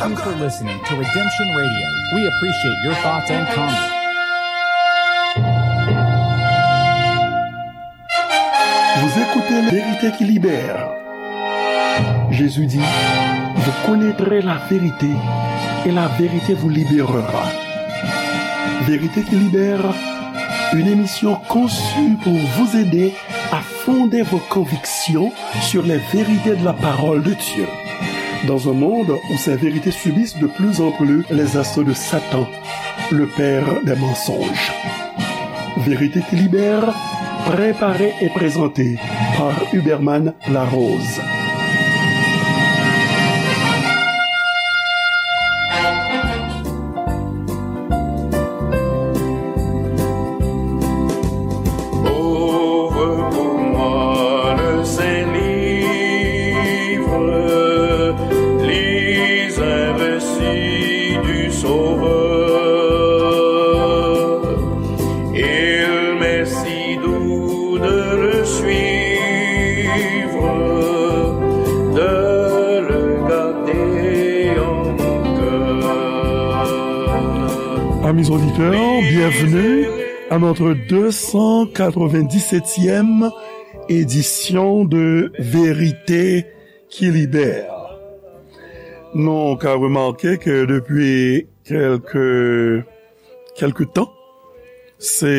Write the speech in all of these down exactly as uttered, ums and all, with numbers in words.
Thank you for listening to Redemption Radio. We appreciate your thoughts and comments. Vous écoutez La Vérité qui libère. Jésus dit, vous connaîtrez la vérité et la vérité vous libérera. Vérité qui libère, une émission conçue pour vous aider à fonder vos convictions sur les vérités de la parole de Dieu. Dans un monde où ces vérités subissent de plus en plus les assauts de Satan, le père des mensonges. Vérité qui libère, préparée et présentée par Huberman Larose. Ouvre pour moi le Saint-Livre, lis un récit du Sauveur. Il m'est si doux de le suivre, de le garder en mon cœur. Amis auditeurs, bienvenue à notre deux cent quatre-vingt-dix-septième édition de Vérité qui libère. Nou ka remake ke depi kèlke, kèlke tan, se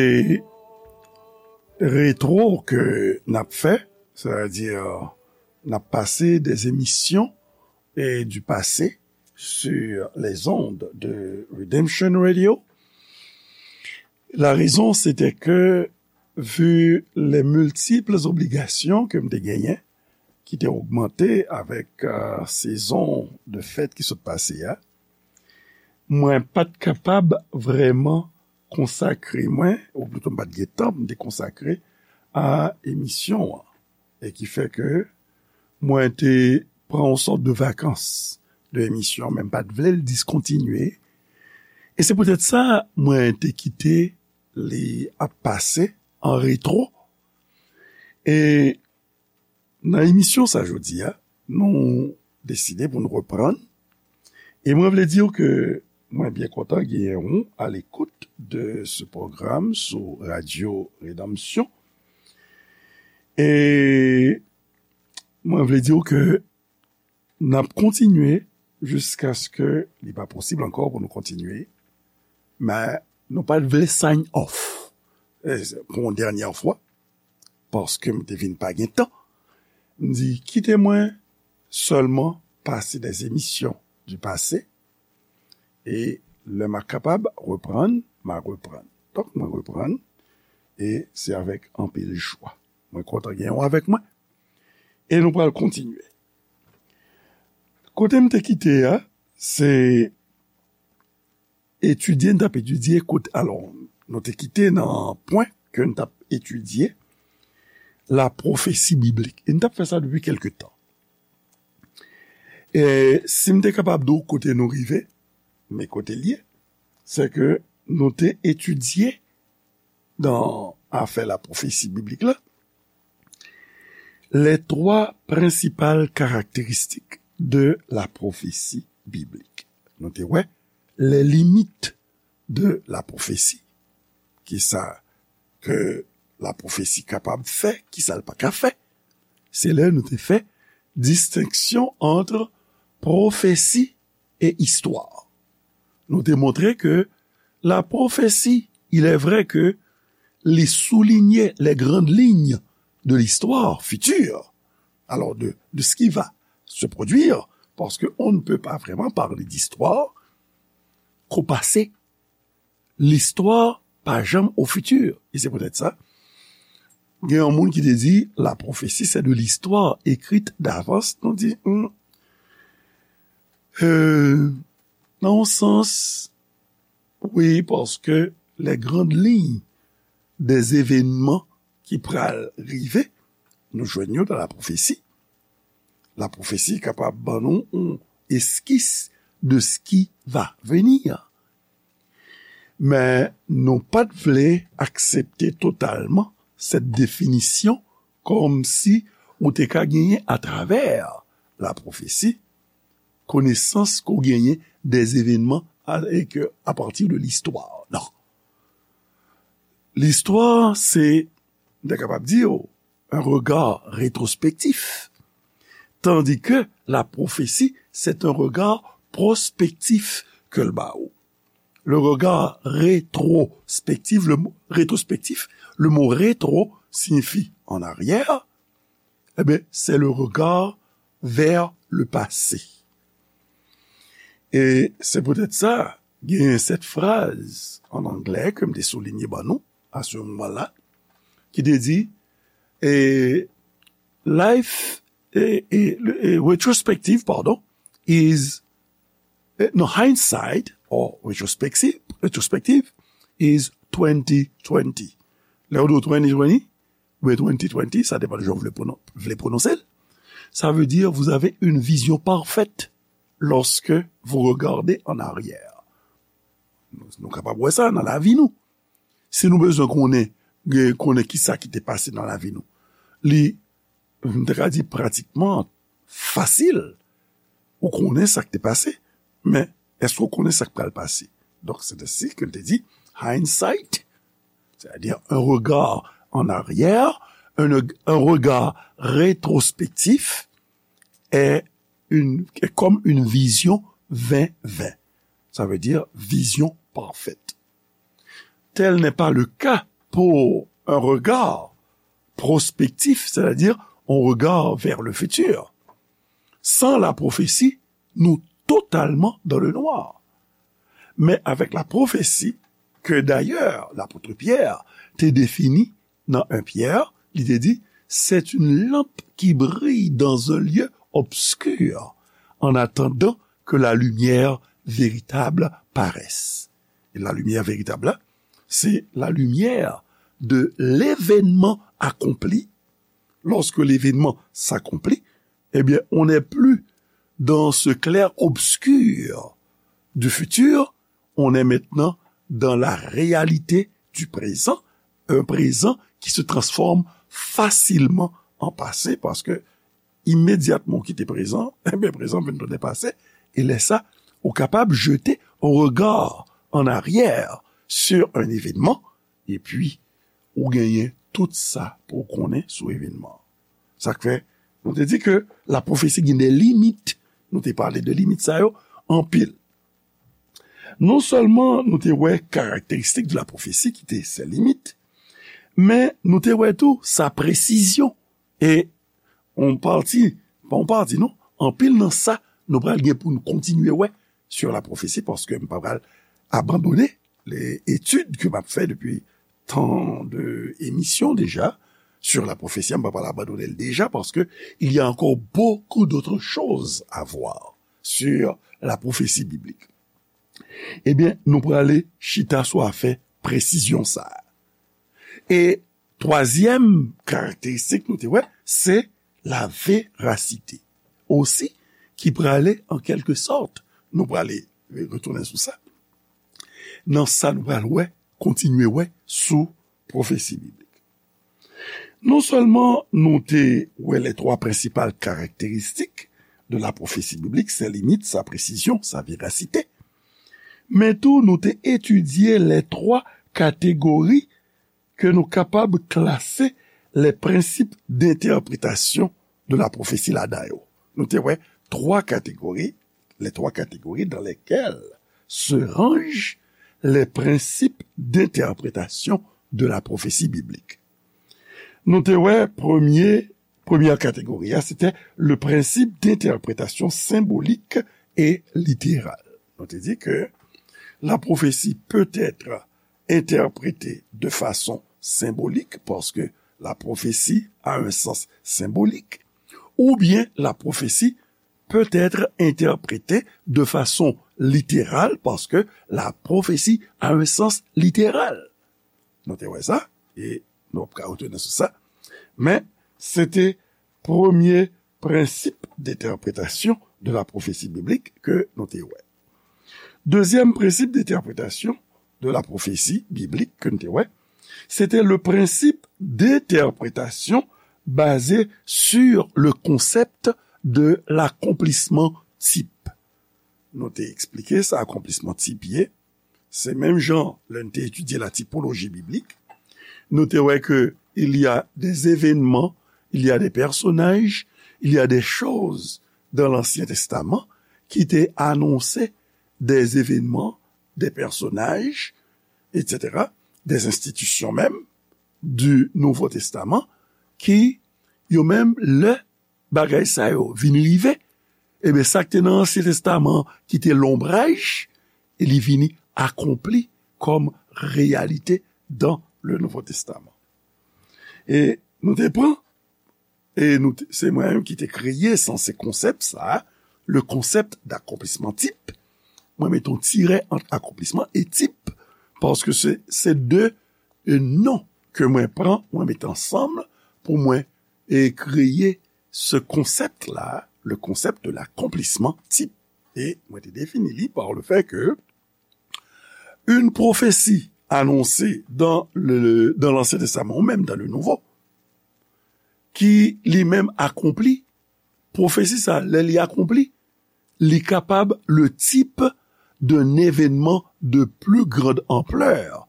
retwo ke n ap fè, sètadi n ap pase des émissions et du passé sur les ondes de Redemption Radio. La raison, c'était que, vu les multiples obligations ke m te genyen, ki te ogmante avèk, euh, sezon de fèt ki sot pase a, mwen pa t kapab vrèman konsakre mwen, ou plito m pa t gen tan pou m te konsakre a emisyon an. E ki fè ke mwen te pran yon sòt de vakans de emisyon, men m pa t vle l diskontinye. E se poutèt sa, mwen te kite li ap pase an retwo. E nan emisyon sa jodi a, nou deside pou nou reprann. E mwen vle di w ke mwen byen kontan genyen w à l'écoute de ce programme sou Radio Rédemption. E mwen vle di w ke n ap kontinye jiskaske li pa posib ankò pou nou kontinye. Men nou pa t vle sign off, e, pou yon dènyè fwa, paske m te vin pa gen tan. M di, kite mwen sèlman pase des émissions du passé, e lè m a kapab reprann, m a reprann. Donk, mwen reprann, e se avèk anpil jwa. Mwen kontan gen w avèk mwen, e nou pral kontinye. Kote m te kite a, se etidye, n t ap etidye kote, alò, nou te kite nan pwen ke n t ap etidye la pwofesi biblik. E n t ap fè sa depi kèlke tan. E si m te kapab di w kote nou rive, men kote l ye, se ke nou te etidye nan afè la pwofesi biblik la, les trois principales caractéristiques de la prophétie biblique. Nou te wè les limites de la prophétie. Kisa ke la pwofesi kapab fè, kisa l pa ka fè. Se lè nou te fè distenksyon ant pwofesi e istwa. Nou te montre ke la prophétie, il est vrai que li souligne les grandes lignes de l'histoire future, alors de, de ce qui va se produire, parce qu'on ne peut pas vraiment parler d'histoire qu'au passé. Listwa pa janm au futur. E se poutèt sa, gen yon moun ki te di, la prophétie, c'est de l'histoire écrite d'avance. Nou di, hmm, euh, nan yon sans, wi, paske les grandes lignes des événements ki pral rive, nou jwenn yo dans la prophétie. La prophétie kapab ban nou yon eskis de ce qui va venir. Men nou pa t vle aksepte totalman cette définition kòmsi ou te ka genyen atravè la prophétie, konesans ke w genyen des événements a, e ke a partir de l'histoire. Non. L'histoire, c'est, m ta kapab di w, un regard rétrospectif. Tandis que la prophétie, c'est un regard prospectif ke l ba ou. Le regard rétrospectif, le mot rétrospectif, le mot rétro signifie en arrière, eh bien, c'est le regard vers le passé. E se poutèt sa, gen sèt fraz an anglè ke m te soulinye ban nou a se moman la, ki te di, e, life, e, e, e, retrospective, pardon, is, e, no, hindsight or retrospective, retrospective is twenty twenty. Lè yo di w twenty twenty, oubyen twenty twenty, ça dépend de jan w vle pwonon-, vle pwononse l. Ça veut dire, vous avez une vision parfaite lorsque vous regardez en arrière. Nou, nou kapab wè sa nan lavi nou. Si nou bezwen konnen, gen, konnen ki sa ki te pase nan lavi nou, li, m te ka di pratikman fasil. Ou konnen sa k te pase, men èske w konnen sa k pral pase? Donk, c'est ainsi que l te di, hindsight, c'est-à-dire un regard en arrière, un, un regard rétrospectif est une, est comme une vision vingt vingt. Ça veut dire vision parfaite. Tel n'est pas le cas pour un regard prospectif, c'est-à-dire on regard vers le futur. Sans la prophétie, nous totalement dans le noir. Mais avec la prophétie, que d'ailleurs l'apôtre Pierre te définit dans un Pierre, li te di, c'est une lampe qui brille dans un lieu obscur, en attendant que la lumière véritable paraisse. Et la lumière véritable, là, c'est la lumière de l'événement accompli. Lorsque l'événement s'accomplit, eh bien, on n'est plus dans ce clair-obscur du futur, on est maintenant dans la réalité du présent, un présent qui se transforme facilement en passé, parce que immédiatement w kite prézan, eh bien, prézan vin tounen passé, e lè sa, ou kapab jeter un regard en arrière sur un événement, epi ou genyen tout sa pou w konnen sou evènman. Sa k fè, nou te di ke lapwofesi gen de limit. Nou te pale de limit sa yo anpil. Non sèlman nou te wè karakteristik de lapwofesi ki te sen limit, men nou te wè tou sa presizyon. E yon pati, pa yon pati non, anpil nan sa nou pral gen pou nou kontinye wè sur la prophétie, paske m pa pral abandone les études ke m ap fè depi tan de emisyon deja sur la prophétie, m pa pral abandone l deja, paske il y a encore beaucoup d'autres choses à voir sur la prophétie biblique. Ebyen, nou prale chita sou afè presizyon sa a. E twazyèm karakteristik nou te wè, se la verasite. Osi, ki prale an kèlke sòt, nou prale retounen sou sa. Nan sa nou pral wè, kontinye wè sou pwofesi biblik. Non sèlman nou te wè les trois principales caractéristiques de la prophétie biblique, ses limites, sa presizyon, sa verasite, men tou nou te etidye les trois catégories ke nou kapab klase les principes d'interprétation de la prophétie ladan yo. Nou te wè twa kategori, les trois catégories dans lesquelles se rangent les principes d'interprétation de la prophétie biblique. Nou te wè premye, premyè kategori a, se te le principe d'interprétation symbolique et littérale. Nou te di ke la prophétie peut être interprétée de façon symbolique, parce que la prophétie a un sens symbolique, ou bien la prophétie peut être interprétée de façon littérale, parce que la prophétie a un sens littéral. Nou te wè sa, e nou ap ka retounen sou sa. Men, se te premye prensip d'interprétation de la prophétie biblique ke nou te wè. Dezyèm prensip d'interprétation de la prophétie biblique ke nou te wè, se te le principe d'interprétation basé sur le concept de l'accomplissement type. nou te eksplike sa akonplisman tip ye. Se menm jan lè n te etidye la tipoloji biblik, nou te wè ke il y a des événements, il y a des personnages, il y a des choses dans l'Ancien Testament ki te anonse des événements, des personnages, et cetera, des institutions même du Nouveau Testament, ki yo menm lè bagay sa yo vin rive, ebyen, sa k te nan Ansyen Testaman ki te lonbraj, e li vini akonpli kòm reyalite dans le Nouveau Testament. E nou te pran, e nou te, se mwen menm ki te kreye sanse konsèp sa, le concept d'accomplissement type. Mwen mete yon tirè ant akonplisman e tip, paske se, se de, e, non ke mwen pran, mwen mete ansanm pou mwen, e, kreye ce concept-là, le concept de l'accomplissement type. E mwen te defini li par le fait que une prophétie annoncée dans le, dans l'Ancien Testament ou même dans le Nouveau, ki li menm akonpli, pwofesi sa, lè li akonpli, li kapab le type d'un événement de plus grande ampleur,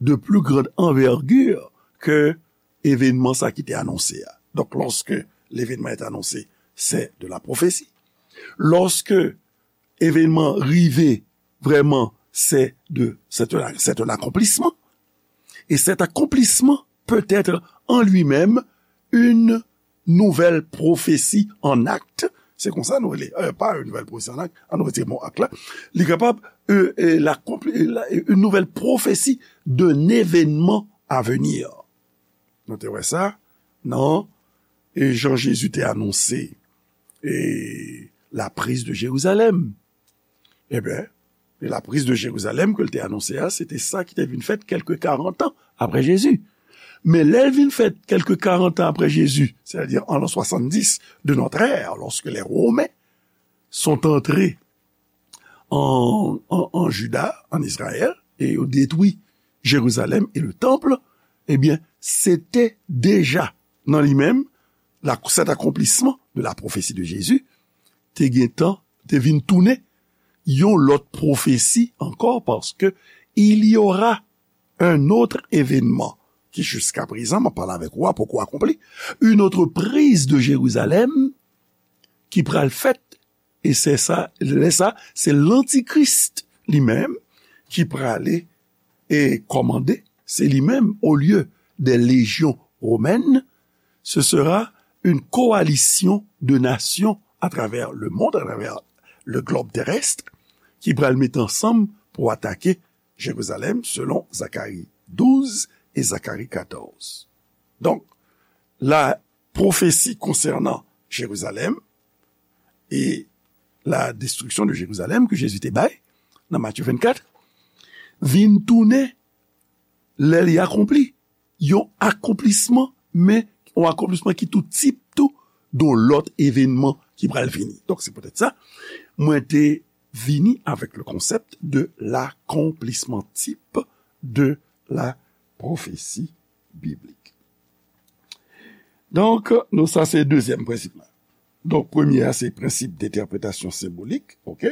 de plus grande envergure que événement sa ki te anonse a. Donc, lorsque l'événement est annoncé, c'est de la prophétie. Lorsque événement rive, vraiment, c'est de, c'est un, c'est un accomplissement. Et cet accomplissement peut être en lui-même une nouvelle prophétie en acte. Se konsa nou rele, euh, pa une nouvelle prophétie en acte, an nou retire mo ak la. Li kapab, euh, euh, la, la, une nouvelle prophétie d'un événement à venir. Nou te wè sa nan, e, jan Jezi te anonse, e, la prise de Jérusalem. Ebyen, la prise de Jérusalem ke l te anonse a, se te sa ki te vin fèt kèlke karant an apre Jezi. Men lè l vin fèt kèlke karant an apre Jezi, c'est-à-dire en l'an soixante-dix de notre ère, lorsque les Romains sont entrés en, en, en Juda, en Israël, e yo detwi Jerizalèm e le tanp, ebyen, se te deja nan li menm, la, cet accomplissement de la prophétie de Jésus, te gentan, te vin tounen yon lòt pwofesi ankò, paske il y aura un autre événement ki jiska prezan, mwen pale avèk ou a, poko akonpli, une autre prise de Jérusalem ki pral fèt, e se sa, lè sa, se lantikris li menm ki prale e kòmande, se li menm, au lieu des légions romaines, ce sera une coalition de nations à travers le monde, à travers le globe terrestre, ki pral met ansanm pou atake Jerizalèm, selon Zacharie douze et Zacharie quatorze. Donk, la pwofesi konsènan Jerizalèm e la destriksyon de Jerizalèm ke Jezi te bay nan Matye vennkat vin tounen, lè li akonpli, yon akonplisman, men yon akonplisman ki tou tip tou de yon lòt evènman ki pral vini. Donk, se poutèt sa, mwen te vini avec le concept de l'accomplissement type de la prophétie biblique. Donk, nou, sa se dezyèm prensip la. Donk, premye a, se prensip d'interprétation symbolique, ok?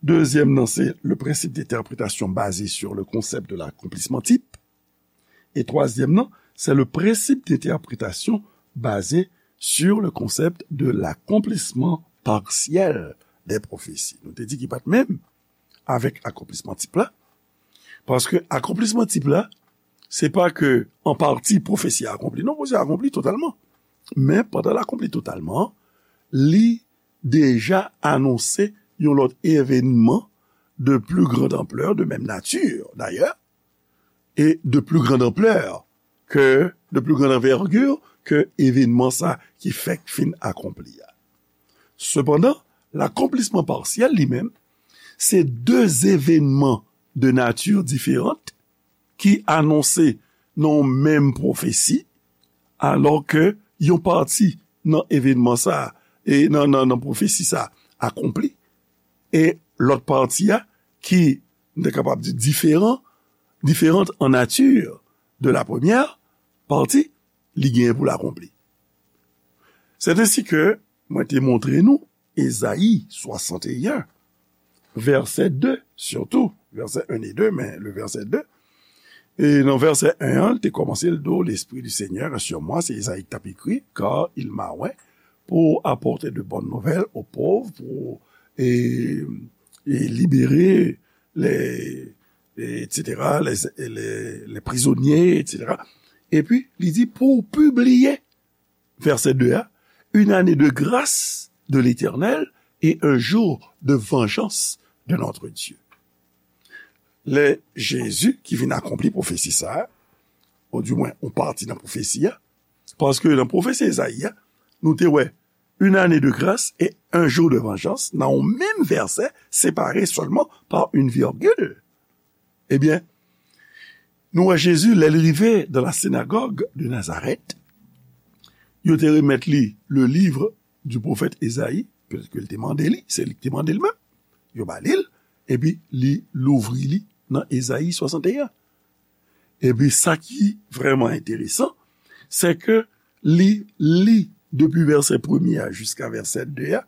Dezyèm nan, se le principe d'interprétation basé sur le concept de l'accomplissement type. E twazyèm nan, c'est le principe d'interprétation basé sur le concept de l'accomplissement partiel des prophéties. Nou te di ki pa t menm avèk akonplisman tip la. Paske akonplisman tip la, se pa ke an pati pwofesi a akonpli. Non, pwofesi a akonpli totalman. Men pandan l akonpli totalman, li deja anonse yon lòt evènman de plus grande ampleur, de même nature d'ailleurs, et de plus grande ampleur que, de plus grande envergure que evènman sa ki fèk fin akonpli a. Sepandan, l'accomplissement partiel li menm, se de evènman de nature différente ki anonse nan yon menm pwofesi, alò ke yon pati nan evènman sa a, e nan, nan, nan pwofesi sa a akonpli, e lòt pati a, ki, nou te kapab di, diferan, différente en nature de la première partie, li genyen pou l akonpli. C'est ainsi que mwen te montre nou Ezayi swasanteyen, vèsè de, sitou, vèsè en e de, men le vèsè de. E nan vèsè en an, l te kòmanse, l di w, L'Esprit du Seigneur est sur moi, se Ezayi k t ap ekri, car il m'a oint pour apporter de bonnes nouvelles aux pauvres, pour, e, e libere les, et cetera, les, les, les prisonniers, et cetera. Epi, li di, pou pibliye, vèsè de a, une année de grâce de l'Éternel et un jour de vengeance de notre Dieu. Lè Jezi ki vin akonpli pwofesi sa a, ou di mwen, yon pati nan pwofesi a, paske nan pwofesi Ezayi a, nou te wè une année de grâce et un jour de vengeance, nan yon menm vèsè, separe sèlman pa yon virgil. Ebyen, nou wè Jezi, lè l rive dans la synagogue de Nazareth, yo te remèt li le livre du prophète Ezayi, petèt ke l te mande li, se li ki te mande l menm, yo ba li l, epi li louvri li nan Ezayi swasanteyen. Epi sa ki vrèman enteresan, se ke li li depi vèsè premye a jiska vèsè de a,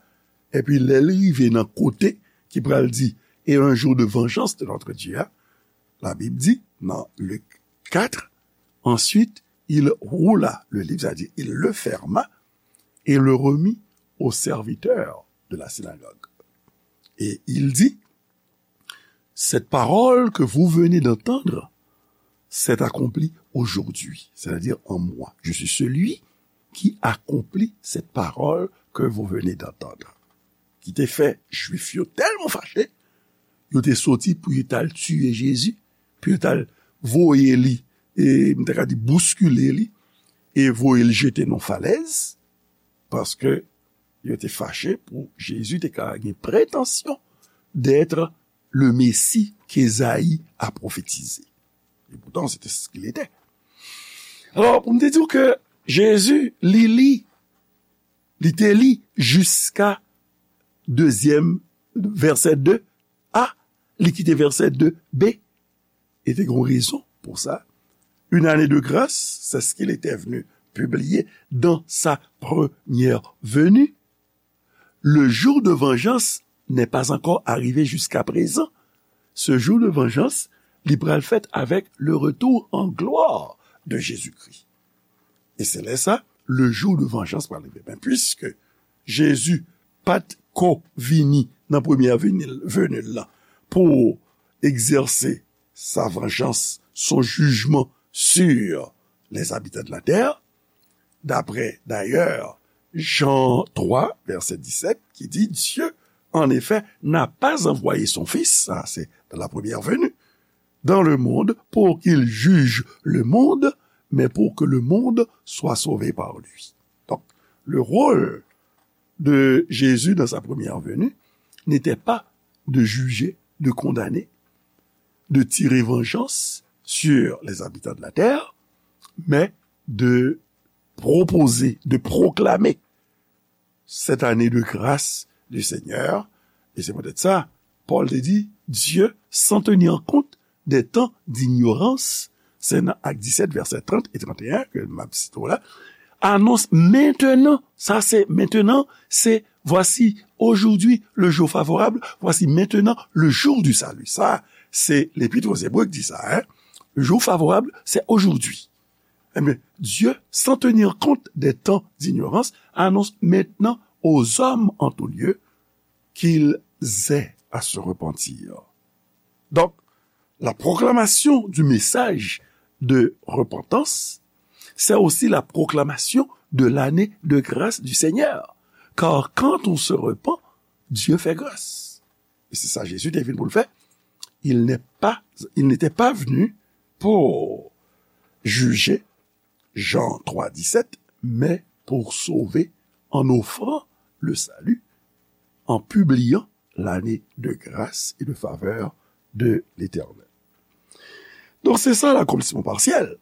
epi lè l rive nan kote ki pral di, et un jour de vengeance de notre Dieu a, la Bible dit, dans Luc quatre, ensuite, il roula le livre, c'est-à-dire il le ferma et le remit au serviteur de la synagogue. Et il dit, cette parole que vous venez d'entendre s'est accomplie aujourd'hui, c'est-à-dire en moi. Je suis celui qui accomplit cette parole que vous venez d'entendre. Ki te fè Jwif yo tèlman fache, yo te soti pou yo t al tiye Jezi, pou yo t al voye li, e m ta ka di bouskile li, e voye l jete nan falèz, paske yo te fache pou Jezi te ka gen pretansyon d'être le Messie qu'Ésaïe a prophétisé. Et pourtant, c'était ce qu'il était. Alors, pou m te di w ke Jezi, li li, li te li jiska dezyèm vèsè de a, li kite vèsè de b, e te gen rezon pou sa. Une année de grâce, c'est ce qu'il était venu publier dans sa première venue. Le jour de vengeance n'est pas encore arrivé jusqu'à présent. Ce jour de vengeance, li pral fèt avec le retour en gloire de Jésus-Christ. E se lè sa, le jour de vengeance pral rive. Men piske Jezi pa t ko vini nan premyè veni l, veni l lan pou egzèse sa vanjans, son jijman sur les habitants de la terre, d'après d'ailleurs Jean trois, verset dix-sept, qui dit, Dieu, en effet, n'a pas envoyé son Fils, ça c'est dans la première venue, dans le monde pour qu'il juge le monde, mais pour que le monde soit sauvé par lui. Donc, le rôle de Jésus dans sa première venue n'était pas de juger, de condamner, de tirer vengeance sur les habitants de la terre, mais de proposer, de proclamer cette année de grâce du Seigneur. E se poutèt sa, Pòl te di, Dieu, sans tenir compte des temps d'ignorance, se nan Ak disèt, vèsè trant e tranteyen ke m ap site w la, annonce maintenant, sa se maintenant, se voici, aujourd'hui, le jour favorable, voici maintenant le jour du salut. Sa, se Lepit aux Hébreux ki di sa, hein. Le jour favorable, c'est aujourd'hui. Eh bien, Dieu, sans tenir compte des temps d'ignorance, annonce maintenant aux hommes en tout lieu qu'ils aient à se repentir. Donc, la proclamation du message de repentance, c'est aussi la proclamation de l'année de grâce du Seigneur. Car quand on se repent, Dieu fait grâce. E se sa Jezi te vin pou l fè. Il n'est pas, il n'était pas venu pour juger, Jean trois dix-sept, mais pour sauver en offrant le salut, en publiant l'année de grâce et de faveur de l'Éternel. Donk, se sa l'accomplissement partiel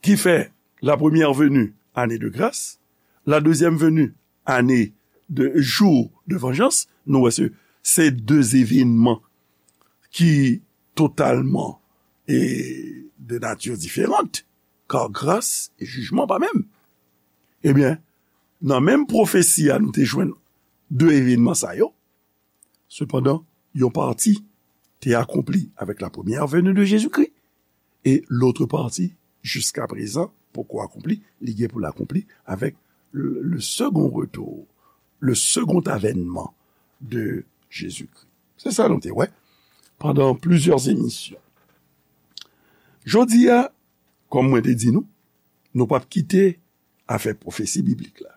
ki fè la première venue, année de grâce, la deuxième venue, année de jour de vengeance. Nou wè se, se de evènman ki totalman e de nati diferan, kar gras e jijman pa menm. Ebyen, nan menm pwofesi a, nou te jwenn de evènman sa yo. Sepandan, yon pati te akonpli avèk la première venue de Jésus-Christ, e lòt pati, jiska prezan, poko akonpli, li gen pou l akonpli avèk le, le second retour, le second avènman de Jésus-Christ. Se sa nou te wè pandan plizyè emisyon. Jodi a, kòm mwen te di nou, nou p ap kite afè pwofesi biblik la.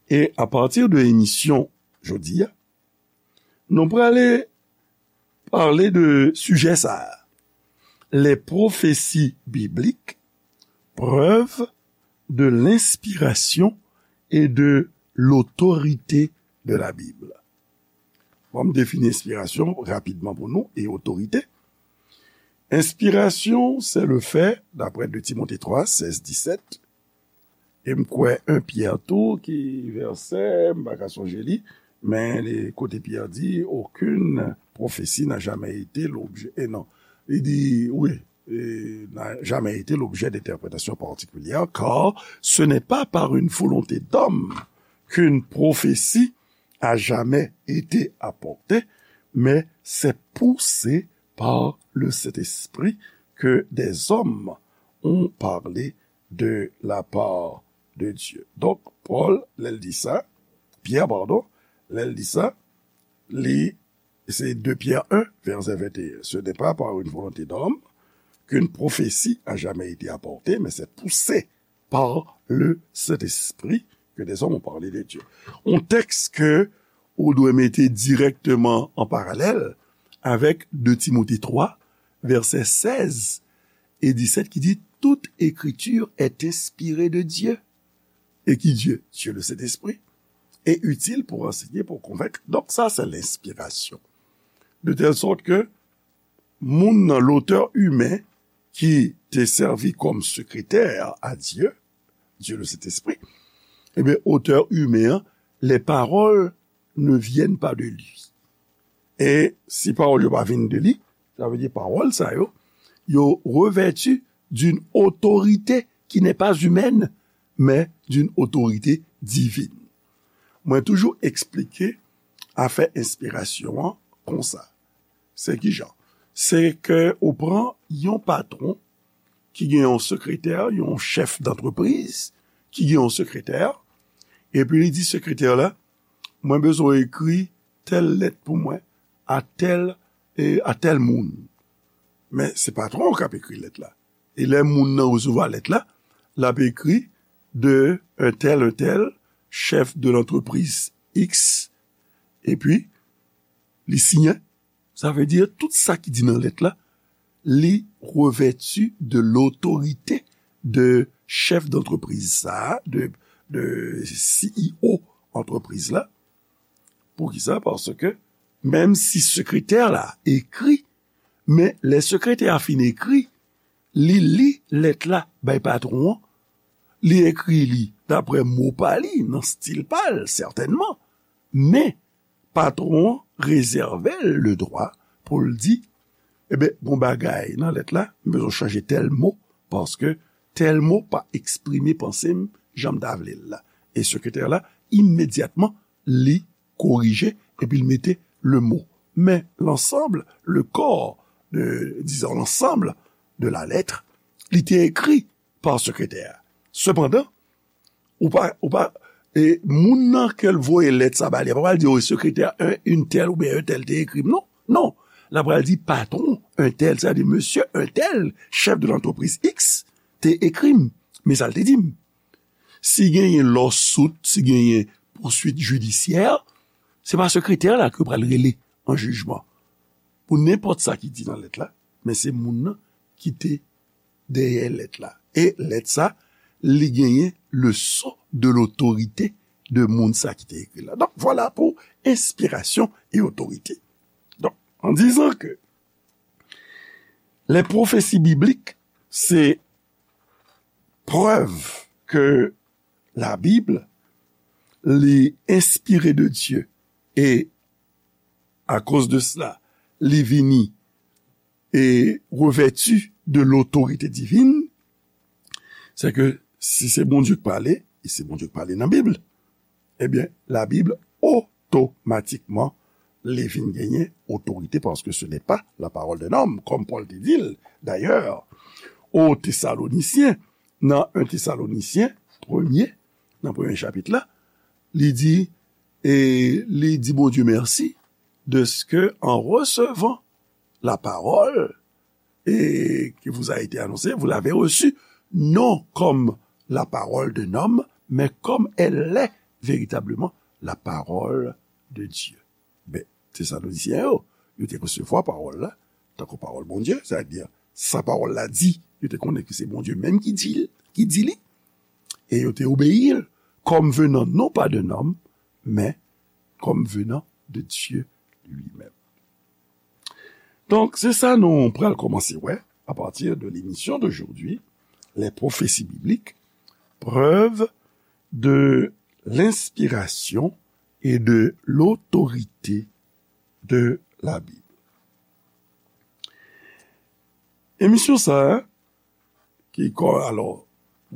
E apati de emisyon jodi a, nou prale pale de sijè sa a. Les prophéties bibliques, preuve de l'inspiration et de l'autorité de la Bible. Bon, m defini enspirasyon rapidman pou nou e otorite. Inspiration, c'est le fait, d'après deux Timothée trois, seize, dix-sept, e m kwè en Pyè tou, ki vèsè, m pa ka sonje li, men li, kote Pyè di, aucune prophétie n'a jamais été l'objet, e non, li di, wi, e, n'a jamais été l'objet d'interprétation particulière, car ce n'est pas par une volonté d'homme qu'une prophétie a jamais été apportée, mais c'est poussé par le Saint-Esprit que des hommes ont parlé de la part de Dieu. Donk, Pòl, lè l di sa, Pyè, padon, lè l di sa, li, se de Pyè un, vèsè venteyen. Ce n'est pas par une volonté d'homme qu'une prophétie a jamais été apportée, mais c'est poussé par le Saint-Esprit que des hommes ont parlé de Dieu. Un texte que ou dwe mete dirèkteman an paralèl avèk de Timote twa, vèsè sèz e disèt ki di, toute écriture est inspirée de Dieu. Et qui Dieu? Dieu le Saint-Esprit. Et utile pour enseigner, pour convaincre. Donk sa, se lenspirasyon. De telle sorte que moun nan, lotè imen ki te sèvi kòm sekretè a Dye, Dieu le Saint-Esprit, ebyen, otè imen an, les paroles ne viennent pas de lui. E si pawòl yo pa vin de li, sa vle di pawòl sa yo, yo revèti d'une autorité qui n'est pas humaine, mais d'une autorité divine. Mwen toujou eksplike afè enspirasyon an konsa. Se ki jan? Se ke ou pran yon patwon ki gen yon sekretè, yon chèf dantrepriz ki gen yon sekretè, epi li di sekretè la, mwen bezwen w ekri tèl lèt pou mwen a tèl, e, a tèl moun. Men se patwon an k ap ekri lèt la. E lè moun nan resevwa lèt la, l ap ekri de un tel, un tel, chef de l'entreprise X, epi li siyen. Sa vle di tout sa ki di nan lèt la, li revèti de lotorite de chèf dantrepriz sa a, de, de C E O antrepriz la. Poukisa? Paske menm si sekretè la ekri, men lè sekretè a fin ekri, li li lèt la bay patwon an, li ekri li dapre mo pa li, nan stil pa l, sètènman, men patwon an rezève l le dwa pou l di, ebyen, gon bagay nan lèt la, m bezwen chanje tèl mo, paske tèl mo pa eksprime panse m jan m ta vle l la. E sekretè la, imedyatman, li korije, epi l mete le mo. Men l'ensemble, le corps, de, disons, l'ensemble de la lettre, li te ekri pa sekretè a. Sepandan, ou pa, ou pa, e moun nan ke l voye lèt sa ba li, pa pral di, o, sekretè un, une telle oubyen un tel te ekri m, non. Non. L ap pral di patwon un tel, sa di mesye un tel, chèf de l'entreprise X, te ekri m. Men sa l te di m. Si genyen lawsuit, si genyen pouswit jidisyè, se pa sekretè la ke pral rele an jijman. Pou nenpòt sa ki di nan lèt la, men se moun nan ki te dèyè lèt la. E lèt sa, li genyen le sceau de l'autorité de moun sa ki te ekri la. Donk, vwala pou enspirasyon e otorite. Donk, en disant que les prophéties bibliques, c'est preuve que la Bible, li enspire de Dieu. Et à cause de cela, li vini e revèti de l'autorité divine, c'est que si se Bondye k pale, e se Bondye k pale nan Bib, ebyen, la Bib otomatikman, li vin genyen otorite, paske se n'est pas la parole d'un homme, kòm Pòl te di l, dayè, o Tesalonisyen, nan en Tesalonisyen, premye, nan premye chapit la, li di, e li di Bondye mèsi, de ce que, en recevant la parole, et qui vous a été annoncée, vous l'avez reçue, non comme la parole d'un homme, mais comme elle l'est véritablement, la parole de Dieu. Ben, Tesalonisyen yo, yo te resevwa pawòl la, tankou pawòl Bondye, sa vle di, sa pawòl la di, yo te konnen ke se Bondye menm ki di l, ki di li, e yo te obeyi l, comme venant non pas d'un homme, mais comme venant de Dieu lui-même. Donk, se sa nou pral kòmanse wè, à partir de l'émission d'aujourd'hui, les prophéties bibliques, preuve de l'inspiration et de l'autorité de la Bible. Emisyon sa a, ki kò, alò,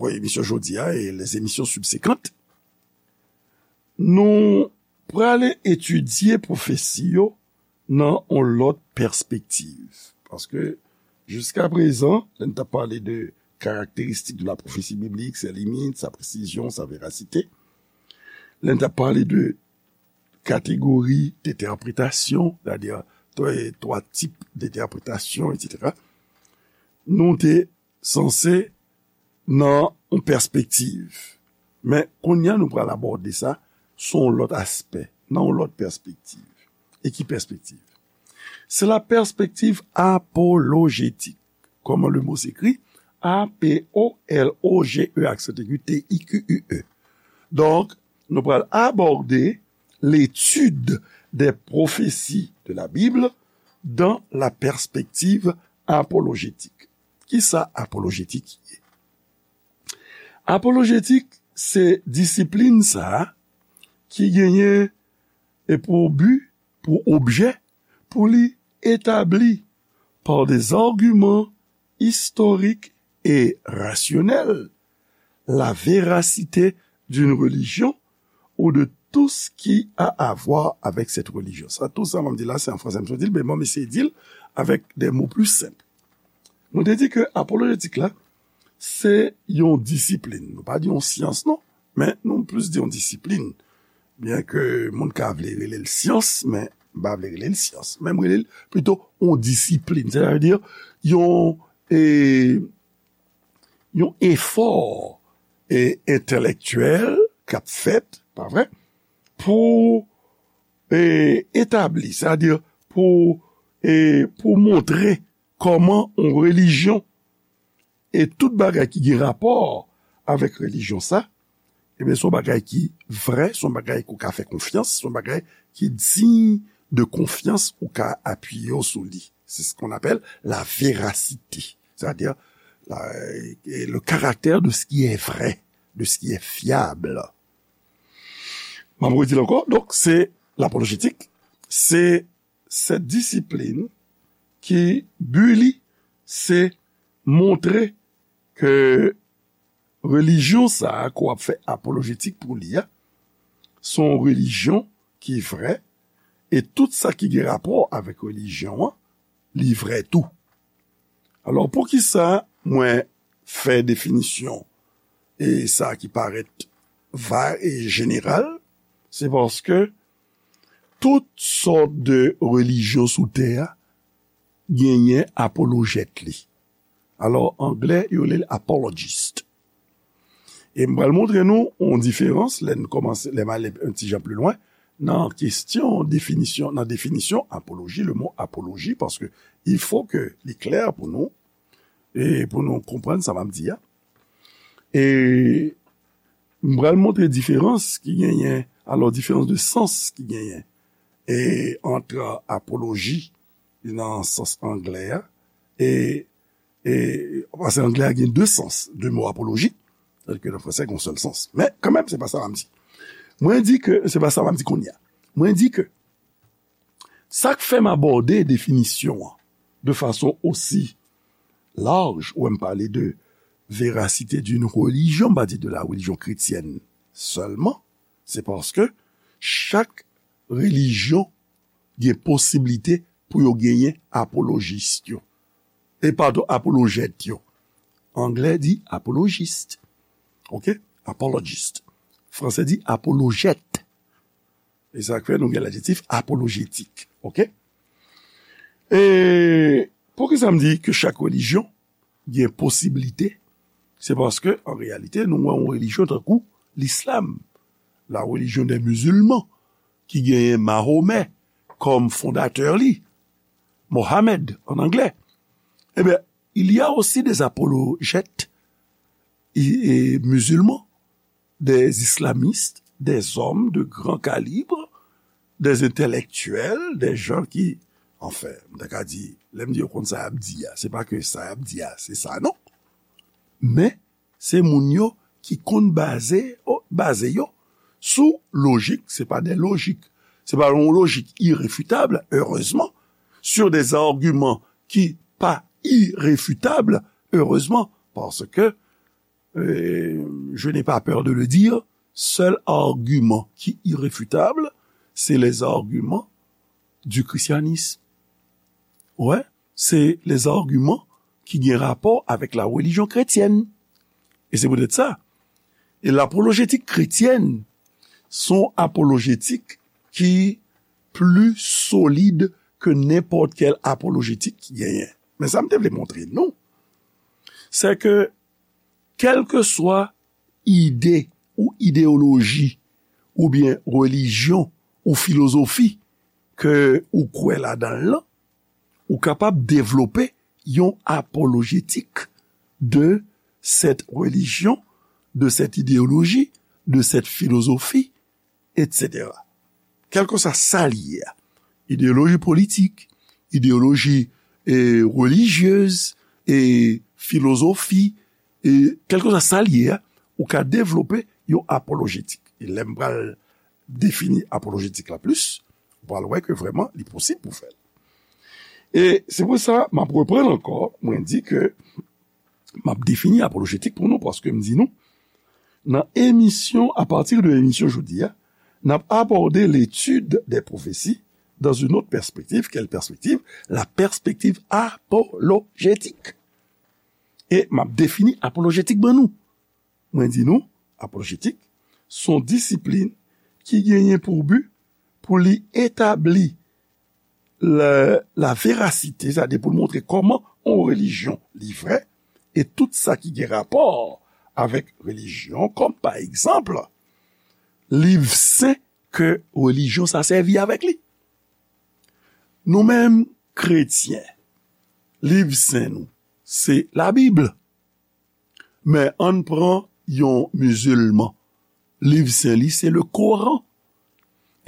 wè, emisyon jodi a e les émissions subséquentes, nou prale etidye pwofesi yo nan yon lòt pèspektiv. Paske, jiska prezan, lè n t ap pale de karakteristik de la prophétie biblique, ses limites, sa presizyon, sa verasite, lè n t ap pale de kategori dentèpretasyon, sètadi twa, twa tip dentèpretasyon, etsetera, nou te sanse nan yon pèspektiv. Men, kounye a, nou pral abòde sa sou yon lòt aspè, nan yon lòt pèspektiv. E ki pèspektiv? C'est la perspective apologétique. Comment le mot s'écrit? A P O L O G E, accent aigu, T I Q U E. Donk, nou pral abòde l'étude des prophéties de la Bible dans la perspective apologétique. Kisa apolojetik ye? Apolojetik se disiplin sa a ki genyen e pou bi, pou objè, pou li etabli par des arguments historiques et rationnels la véracité d'une religion ou de tout ce qui a à voir avec cette religion. Sa, tout sa m ap di la, se an fransè m sot di l, men bon, m eseye di l avèk de mo pli senp. Mwen te di ke apolojetik la, se yon disiplin. Nou pa di yon syans, non, men nou plis di yon disiplin. Byen ke moun ka vle rele l syans, men m pa vle rele l syans. Men m rele l pito yon disiplin. Sètadi, yon, e, yon efò, e, entèlektyèl k ap fèt, pa vre, pou, e, etabli, sètadi pou, e, pou montre kòman yon relijyon e tout bagay ki gen rapò avèk relijyon sa, ebyen, se yon bagay ki vrè, se yon bagay ke w ka fè konfyans, se yon bagay ki diy de konfyans, ou ka apiye w sou li. C'est ce qu'on appelle la véracité, c'est-à-dire la, le caractère de ce qui est vrai, de ce qui est fiable. M ap redi l ankò, donk, se lapolojetik, se sèt disiplin ki bi li se montre ke relijyon sa a ke w ap fè apolojetik pou li a, se yon relijyon ki vrè, e tout sa ki gen rapò avèk relijyon an, li vrè tou. Alò, poukisa mwen fè definisyon e sa ki parèt va e jeneral? Se paske tout sòt de relijyon sou tè a genyen apolojèt li. Alò, anglè, yo rele l apologist. E m pral montre nou yon diferans, lè n kòmanse, lè m ale yon ti jan pli lwen, nan kesyon definisyon, nan definisyon apoloji, le mot apologie, paske il faut que li klè pou nou, e pou nou konprann sa m ap di a. E m pral montre diferans ki genyen, alò, diferans de sans ki genyen, e ant apoloji nan sans anglè a, e, e, paske anglè a gen de sans, de mo apoloji, tandis ke nan fransè, gen yon sèl sans. Men, kanmenm, se pa sa m ap di. Mwen di ke, se pa sa m ap di kounye a. Mwen di ke, sa k fè m abòde definisyon an de fason osi laj, ou m pale de véracité d'une religion, m pa di de la religion chrétienne seulement, se paske chak relijyon gen posiblite pou yo genyen apolojis yo. E padon, apolojèt yo. Anglè di apolojis. Oke? Apologist. Fransè di apolojèt. E sa k fè nou gen ladjektif apolojetik. Oke? E poukisa m di ke chak relijyon gen posiblite? Se paske, an reyalite, nou wè yon relijyon tankou lislam, la religion des musulmans, ki genyen Mahomè kòm fondatè li, Mohamed an anglè. Ebyen, il y a aussi des apologètes i- e, musulmans, des islamistes, des hommes de grand calibre, des intellectuels, des gens qui, anfen, m ta ka di, lè m di yo konn sa y ap di a, se pa ke sa y ap di a, se sa non. Men, se moun yo ki konn baze, o- baze yo sou lojik, se pa de lojik, se pa yon lojik irefitab, erezman, sur des arguments ki pa irefitab, erezman, paske euh, je n'ai pas peur de le dire, seul argument qui est irréfutable, c'est les arguments du christianisme. Ouais, c'est les arguments ki gen rapò avèk la religion chrétienne. E se poutèt sa. E lapolojetik kretyèn se yon apolojetik ki pli solid ke nenpòt kèl apolojetik ki genyen. Men sa m te vle montre nou, se ke kèlkeswa ide ou ideyoloji oubyen relijyon ou filozofi ke ou kwè ladan l lan, ou kapab devlope yon apolojetik de cette religion, de cette idéologie, de cette philosophie, et cetera. Kèlkeswa sa l ye a, ideyoloji politik, ideyoloji e, relijyez, e, filozofi, e, kèlkeswa sa l ye a, ou ka devlope yon apolojetik. E lè m pral defini apolojetik la plis, ou pral wè ke vrèman li posib pou fè l. E se pou sa m ap reprann ankò, mwen di ke m ap defini apolojetik pou nou, paske m di nou, nan emisyon, à partir de emisyon jodi a, n ap abòde l'étude des prophéties dans une autre perspective. Quelle perspective? La perspective apologétique. E m ap defini apolojetik ban nou. Mwen di nou, apolojetik se yon disiplin ki genyen pou bi pou li etabli la, la verasite, sètadi pou l montre kòman yon relijyon li vrè, e tout sa ki gen rapò avèk relijyon, kòm pa egzanp, liv sen ke relijyon sa sèvi avèk li. Nou menm, kretyen, liv sen nou, se Labib. Men ann pran yon mizilman, liv sen li se le Koran.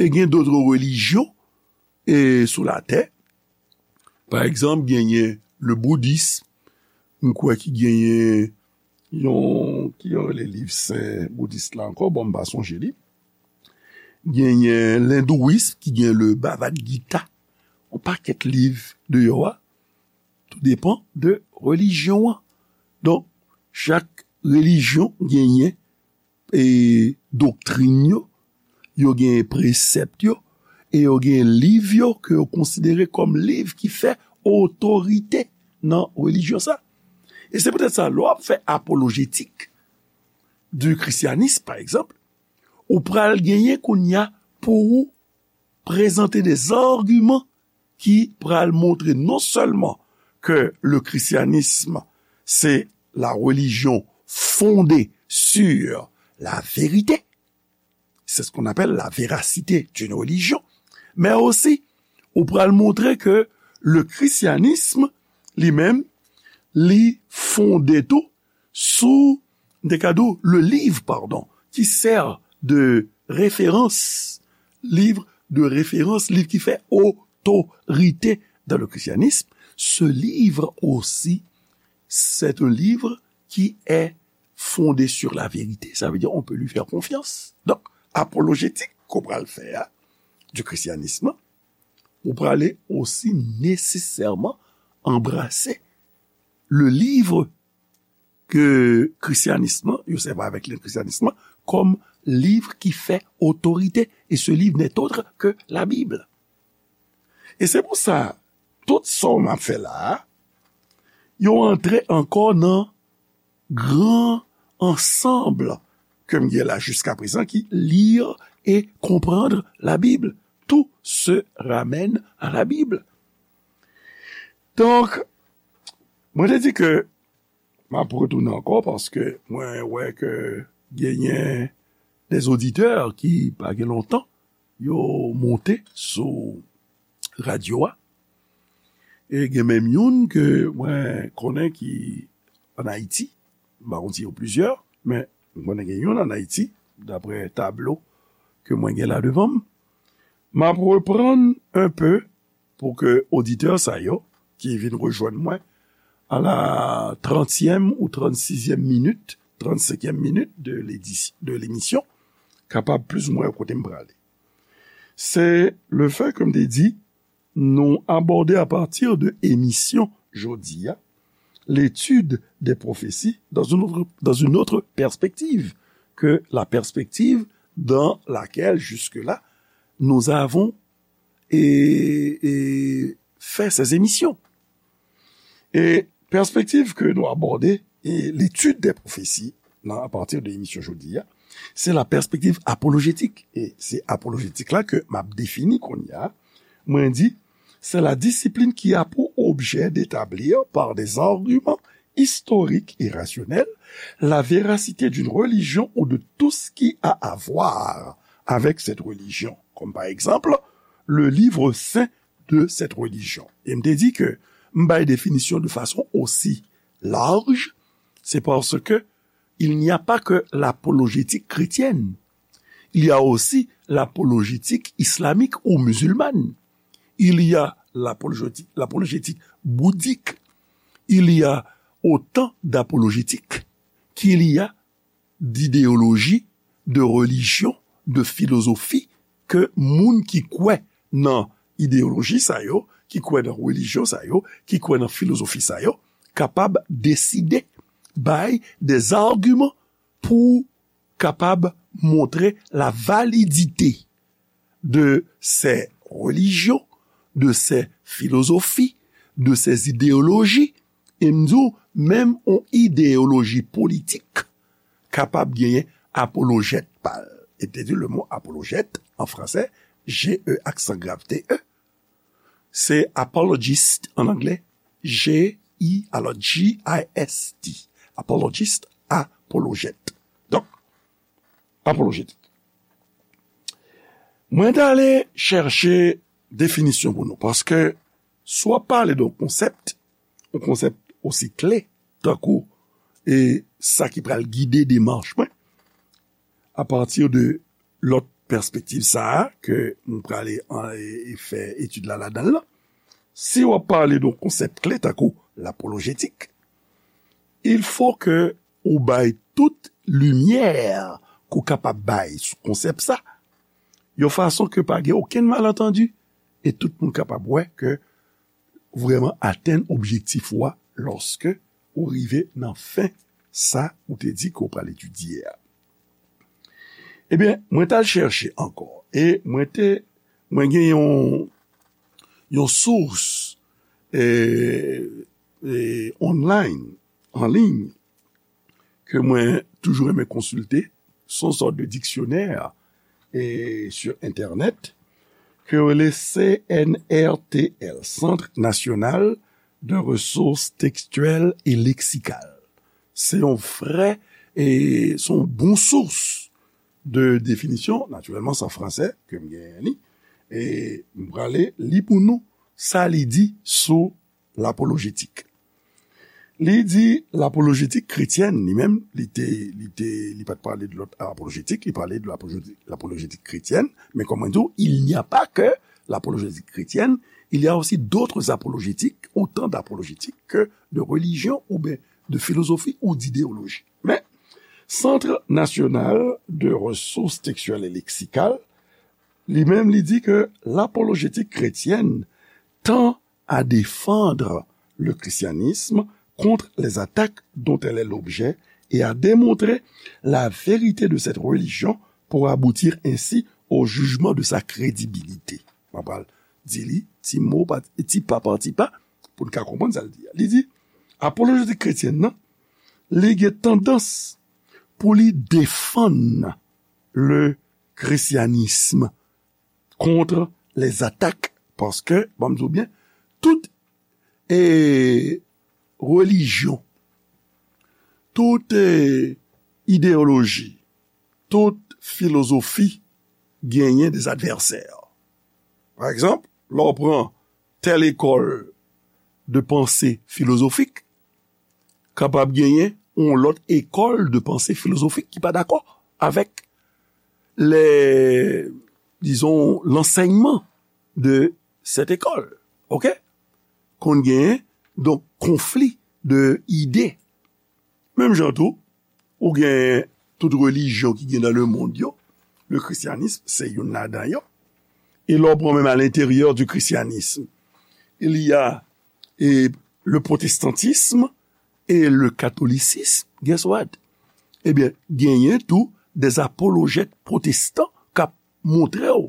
E gen dòt relijyon e sou latè. Pa egzanp, genyen le boudism, m kwè ki genyen yon, ki yo rele liv sen boudis la ankò, bon, m pa sonje li. Genyen lendouism ki gen le Bhagavad Gita, yon pakèt liv deyò a, tou depan de relijyon an. Donk, chak relijyon genyen e doktrin yo, yo gen presèp yo, e yo gen liv yo ke yo konsidere kòm liv ki fè otorite nan relijyon sa. E se poutèt sa, lè w ap fè apolojetik du christianisme, pa egzanp, ou pral genyen kounye a pou ou prezante des arguments ki pral montre non sèlman ke le christianisme se la religion fondée sur la vérité, c'est ce qu'on appelle la véracité d'une religion, men osi ou pral montre ke le christianisme li menm li fonde tou sou, m te ka di w, le livre, pardon, qui sert de référence, livre de référence, liv ki fè otorite dans le christianisme. Ce livre aussi, c'est un livre qui est fondé sur la vérité. Ça veut dire on peut lui faire confiance. Donk, apolojetik ke w pral fè a, du christianisme, ou prale osi nesesèman anbrase le livre ke christianisme, yo sèvi avèk le christianisme kòm livre qui fait autorité, et ce livre n'est autre que la Bible. E se pou sa, tout sa m ap fè la a, yo antre ankò nan gran ansanm ke m gen la jiska prezan ki lire et comprendre la Bible. Tout se ramène à la Bible. Donk, mwen te di ke m ap retounen ankò paske mwen wè ke genyen de oditè ki pa gen lontan yo monte sou radyo a. E gen menm youn ke mwen konnen ki ann Ayiti. M pa konn si yo plizyè, men mwen konnen gen youn ann Ayiti, dapre tablo ke mwen gen la devan m. M ap reprann un peu pou ke oditè sa yo ki vin rejwenn mwen à la trentième ou trente-sixième minute, trente-cinquième minute de l'édi-, de l'émission, kapab plis ou mwen kote m prale. Se le fait, comme te di, nou abòde à partir de émission jodi a, l'étude des prophéties dans une autre, dans une autre perspective que la perspective dans laquelle jusque-là nous avons et, et fait ces émissions. E pèspektiv ke nou abòde e l'étude des prophéties nan, à partir de émission jodi a, se la perspective apologétique. E se apolojetik la ke m ap defini kounye a. Mwen di, c'est la discipline qui a pour objet d'établir par des arguments historiques et rationnels la véracité d'une religion ou de tout ce qui a à voir avec cette religion, comme par exemple le livre saint de cette religion. E m te di ke m bay definisyon de fason osi laj, c'est parce que il n'y a pas que l'apologétique chrétienne. Il y a aussi l'apologétique islamique ou musulmane. Il y a l'apologétique, l'apologétique bouddhique. Il y a autant d'apologétiques qu'il y a d'idéologie, de religion, de philosophie ke moun ki kwè nan ideyoloji sa yo, ki kwè nan relijyon sa yo, ki kwè nan filozofi sa yo, kapab deside bay des arguments pou kapab montre la validité de ces religions, de ces philosophies, de ces idéologies, e m di w, menm yon ideyoloji politik kapab genyen apolojèt pa l. E te di le mot apologète en français, G E aksan grav T E, se apologist an anglè, G I, alò, G I S T, apologist, apologèt. Donk, apolojetik. Mwen t ale chèche definisyon pou nou, paske si w ap pale de yon konsèp, yon konsèp osi kle, tankou, e sa ki pral gide demach mwen, apati de lòt pèspektiv sa a, ke m prale an, e, e fè etid la ladan l lan. Si w ap pale de yon konsèp kle, tankou lapolojetik, il faut que ou bay tout limyè ke w kapab bay sou konsèp sa, yon fason ke pa gen okenn malantandi, e tout moun kapab wè ke vrèman atenn objektif ou a lòske ou rive nan fen sa ou te di ke w pral etidye a. Ebyen, mwen t al chèche ankò, e mwen te, mwen gen yon, yon sous, e, e, online, an liy, ke mwen toujou renmen konsilte, se yon sòt de diksyonè, e, sur Internet, ke yo rele C N R T L, Centre National de Ressources Textuelles et Lexicales. Se yon vrè, e, se yon bon sous de definisyon, natirèlman, se an fransè ke m genyen li, e m prale li pou nou sa li di sou lapolojetik. Li di lapolojetik kretyèn, li menm, li te, li te, li pa t pale de lòt apolojetik, li pale de lapolojetik, lapolojetik kretyèn, men kòm mwen di w, il n'y a pas que l'apologétique chrétienne, il y a aussi d'autres apologétiques, autant d'apologétiques que de religion ou bien de philosophie ou d'idéologie. Men, Centre National de Ressources Textuelles et Lexicales, li menm, li di ke l'apologétique chrétienne tend à défendre le christianisme contre les attaques dont elle est l'objet et à démontrer la vérité de cette religion pour aboutir ainsi au jugement de sa crédibilité. Mwen pral di li ti mo pa ti pa pa ti pa pou n ka konprann sa l di a. Li di, apolojetik kretyen nan, li gen tandans pou li defann le christianisme contre les attaques, paske, ban m di w byen, tout e, relijyon, tout e, ideyoloji, tout filozofi genyen de advèsè. Pa egzanp, lè w pran tèl ekòl de panse filozofik, kapab genyen yon lòt ekòl de panse filozofik ki pa dakò avèk lè, dizon, lansèyman de sèt ekòl. Oke? Konn genyen, donk, konfli de ide. Menm jan tou, ou gen tout relijyon ki gen nan lemonn yo, le christianisme se youn ladan yo. E lè w pran menm à l'intérieur du christianisme, il y a e, le protestantisme et le catholicisme. Guess what? Ebyen, genyen tou des apologètes protestants k ap montre w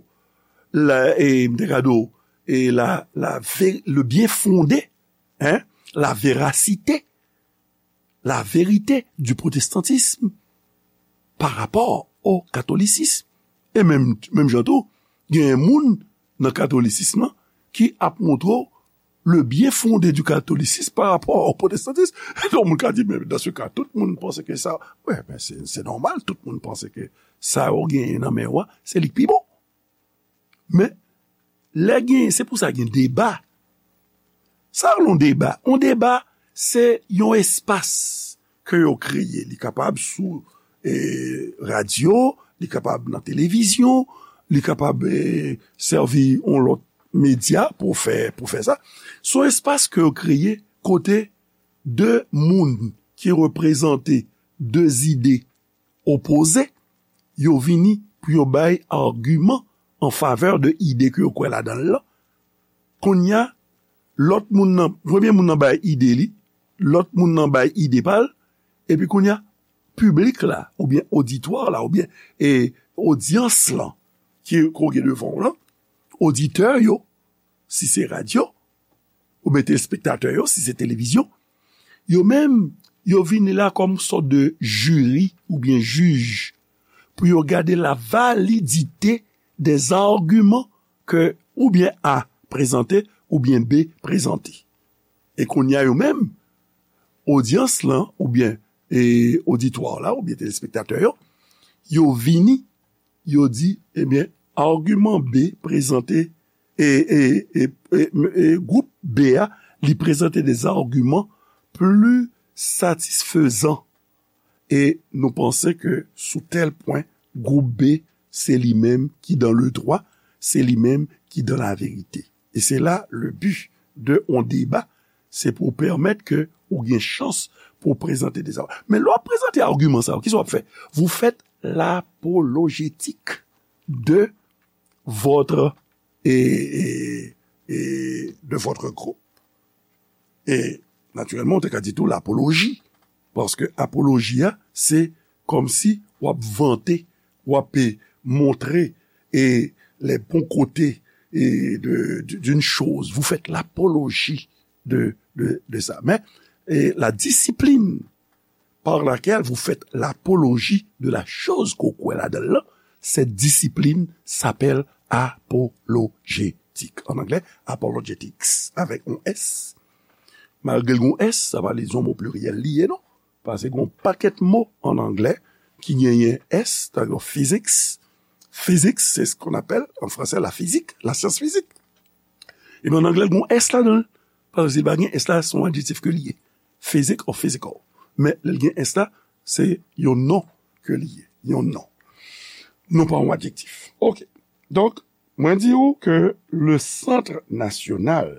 la, e, m te ka di w, e la, la ve- le bien fondé, hein, la véracité, la vérité du protestantisme par rapport au catholicisme. E menm, menm jan tou, gen moun nan katolisism lan ki ap montre w le bien fondé du catholicisme par rapport au protestantisme. Donk, moun ka di, men dans ce cas, tout moun panse ke sa, wè, men se, se nòmal, tout moun panse ke sa yo genyen nan men w a, se li k pi bon. Men, lè gen, se pou sa gen deba. Sa rele yon deba. Yon deba, se yon espas ke yo kreye. Li kapab sou, e, radyo, li kapab nan televizyon, li kapab, e, sèvi yon lòt medya pou fè, pou fè sa. Se yon espas ke yo kreye kote de moun ki reprezante de zide opoze, yo vini pou yo bay agiman an favè de ide ke yo kwè ladan l lan. Kounye a, lòt moun nan, premye moun nan bay ide li, lòt moun nan bay ide pa l, epi kounye a, piblik la, oubyen oditwa la, oubyen, e, odyans lan, ki, ke w gen devan w lan, oditè yo, si se radyo, oubyen telespektatè yo, si se televizyon, yo menm, yo vini la kòm sòt de jiri oubyen jij pou yo gade la validite des arguments que oubyen A prezante oubyen B prezante. E kounye a yo menm, odyans lan oubyen, e, oditwa la oubyen telespektatè yo, yo vini, yo di, ebyen, agiman B prezante, e, e, e, e, e, gwoup B a, li prezante des arguments plus satisfaisants. E nou panse ke sou tèl pwen, gwoup B, se li menm ki dans le droit, se li menm ki dans la vérité. E se la le but de yon deba, se pou pèmèt ke ou gen chans pou w prezante de sa. Men lè w ap prezante agiman sa yo, kisa w ap fè? Vous faites l'apologétique de votre, e, e, e, de votre groupe. E, natirèlman, ou te ka di tou lapoloji, paske apoloji a, se kòmsi w ap vante, w ap, e, montre, e, les bons côtés, e, de, de, d'une chose. Vous faites l'apologie de, de, de ça. Men, e, la discipline par laquelle vous faites l'apologie de la chose ke w kwè ladan l lan, cette discipline s'appelle apologétique. En anglais, apologetics, avec un S. Malgre l gen yon S, sa pa vle di yon mo pliryèl li ye, non. Paske gen yon pakèt mo an anglè ki genyen S, tankou physics. Physics, c'est ce qu'on appelle en français la physique, la science physique. Ebyen, an anglè, l gen yon S ladan l. Paske si l pa gen S la, se yon adjektif ke li ye. Physique or physical. Men, lè l gen S la, se yon non ke li ye. Yon non. Non pa yon adjektif. Oke. Donk, mwen di w ke le Centre National